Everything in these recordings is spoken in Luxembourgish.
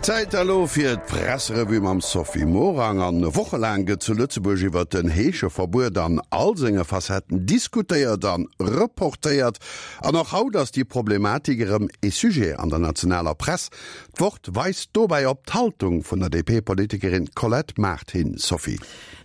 Zäit elo fir d'Presserevue mam Sophie Morang. An wochelaang gëtt zu Lëtzebuerg iwwert den Heescheverbuet an all senge Facetten diskutéiert an reportéiert. An och haut ass déi Problematik erëm ee Sujet an der nationaler Press. D'Wort weist dobäi op d'Haltung vun der DP-Politikerin Colette Mart hin. Sophie.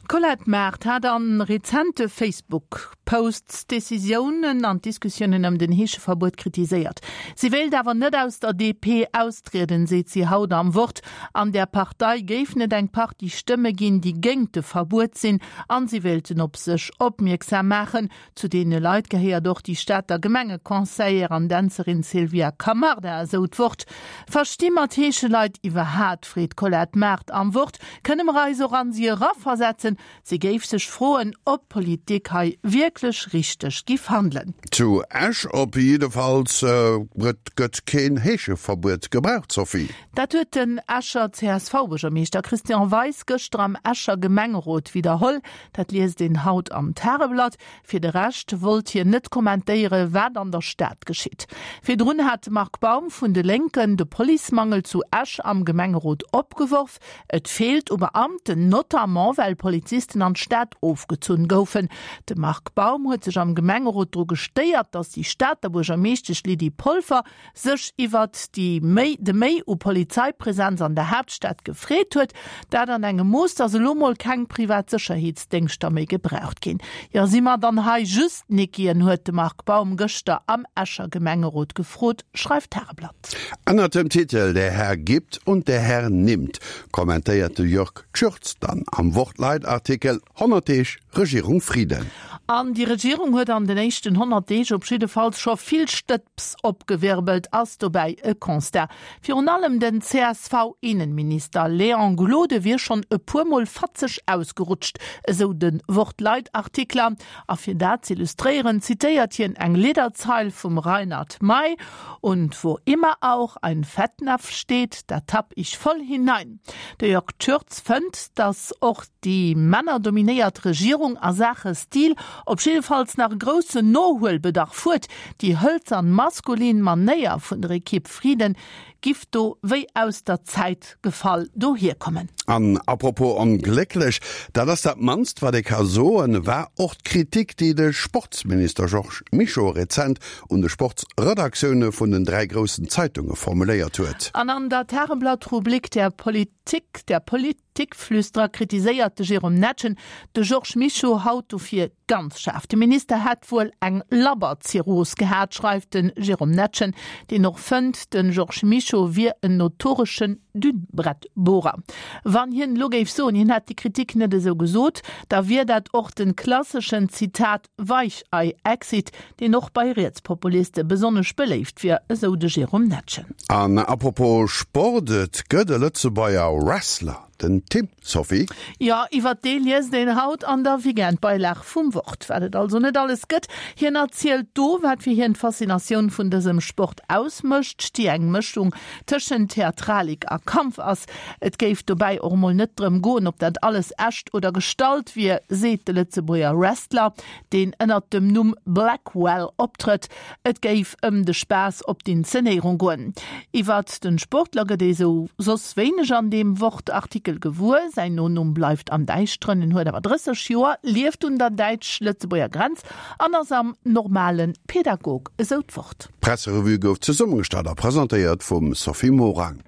D'Colette Mart hat a rezente Facebook-Posts d'Decisiounen an d'Diskussiounen ëm den Heescheverbuet kritiséiert. Si wéilt awer net aus der DP austrieden, seet si haut am Wort. An der Partei géifen et eng Partie Stëmme ginn, déi géingt de Verbuet sinn an si wéilten op sech opmierksam maachen. Zu deene Leit gehéiert och déi Stater Gemengeconseillère an Dänzerin Sylvia Camarda, esou d'Wort. Versti mer d'Heescheleit iwwerhaat? freet d'Colette Mart am Wort. Kënne mer eis och an si eraversetzen? Si géif sech froen, ob d'Politik hei wierklech richteg giff handelen. Zu Esch op jiddefalls gëtt keen Heescheverbuet gebraucht, Sophie. Dat huet den Escher CSV-Buergermeeschter Christian Weis gëschter am Escher Gemengerot widderholl. Dat liest een haut am Tageblatt. Fir de Rescht wollt hien net kommentéiere wat an der Stad geschitt. Virdrun hat de Marc Baum vun de Lénken de Policemangel zu Esch am Gemengerot opgeworf. Et feelt u Beamten, notamment well Polizisten an d'Stad ofgezunn goufen. De Marc Baum huet sech am Gemengerot dru gestéiert, datt déi Stater Buergermeeschtesch Lydie Polfer sech iwwert déi méi de Méi u Polizeipresenz an der Haaptstad gefreet huet, dat an engem Mooss, datt elo mol keng privat Sécherheetsdéngschter méi gebraucht ginn. Jo, si mer dann hei just Nickien, huet de Marc Baum gëschter am Escher Gemengerot gefrot, schreift d'Tageblatt. Ënnert dem Titel Der Herr gibt und der Herr nimmt kommentéiert de Jörg Tschürtz dann am Wort-Leitartikel 100 Deeg Regierung Frieden. An déi Regierung huet an den éischten 100 Deeg op jiddefalls scho vill Stëbs opgewirbelt, ass dobäi e Constat. Virun allem den CSV-Innenminister Léon Gloden wier schonn e puer Mol fatzeg ausgerutscht, esou de Wort-Leitartikler. A fir dat z'illustréieren, zitéiert hien eng Lidderzeil vum Reinhard Mey, Und wo immer auch ein Fettnapf steht, da tapp ich voll hinein. De Jörg Tschürtz fënnt, datt och déi männerdominéiert Regierung a Saache Stil op jiddefalls nach e groussen Nohuelbedarf huet. Déi hëlzern maskulin Manéier vun der Ekipp Frieden giff do wéi aus der Zäit gefall dohierkommen. An apropos onglécklech, dat ass dat mannst wat ee ka soen, war och d'Kritik déi de Sportsminister Georges Mischo rezent un de Sportsredaktioune vun den 3 groussen Zeitunge formuléiert huet. An an der Tageblatt-Rubrik Der Politik, der Politikflüsterer kritiséiert de Jérôme Netgen de Georges Mischo haut dofir ganz schaarf. De Minister hätt wuel eng Labberzirrhos gehat, schreift de Jérôme Netgen, deen och fënnt, de Georges Mischo wier en notoreschen Dünnbrettbohrer. Wann hien elo géif soen, hien hätt déi Kritik net esou gesot, da wier dat och de klasseschen, Zitat, Weichei-Exit, deen och bei Rietspopuliste besonnesch beléift wier, esou de Jérôme Netgen. An apropos Sport, et gëtt e Lëtzebuerger Wrestler, den Tim, Sophie. Jo, iwwert dee liest een haut an der Weekendbeilag vum Wort, wat et also net alles gëtt. Hien erzielt do, wat fir hien d'Faszinatioun vun dësem Sport ausmécht, déi eng Mëschung tëschent Theatralik a Kampf ass. Et géif dobäi och emol net drëm goen, ob dat alles echt oder gestallt wier, seet de Lëtzebuerger Wrestler, deen ënnert dem Numm Blackwell optrëtt. Et géif ëm de Spaass op d'Inzenéierung goen. Iwwert de Sportler gëtt ee sou soss wéineg an deem Wort-Artikel gewuer. Säin Nonumm bleift am Däischteren. En huet awer 30 Joer, lieft un der däitsch-lëtzebuerger Grenz an ass am normale Pädagog, esou d'Wort. D'Presserevue gouf zesummegestallt a presentéiert vum Sophie Morang.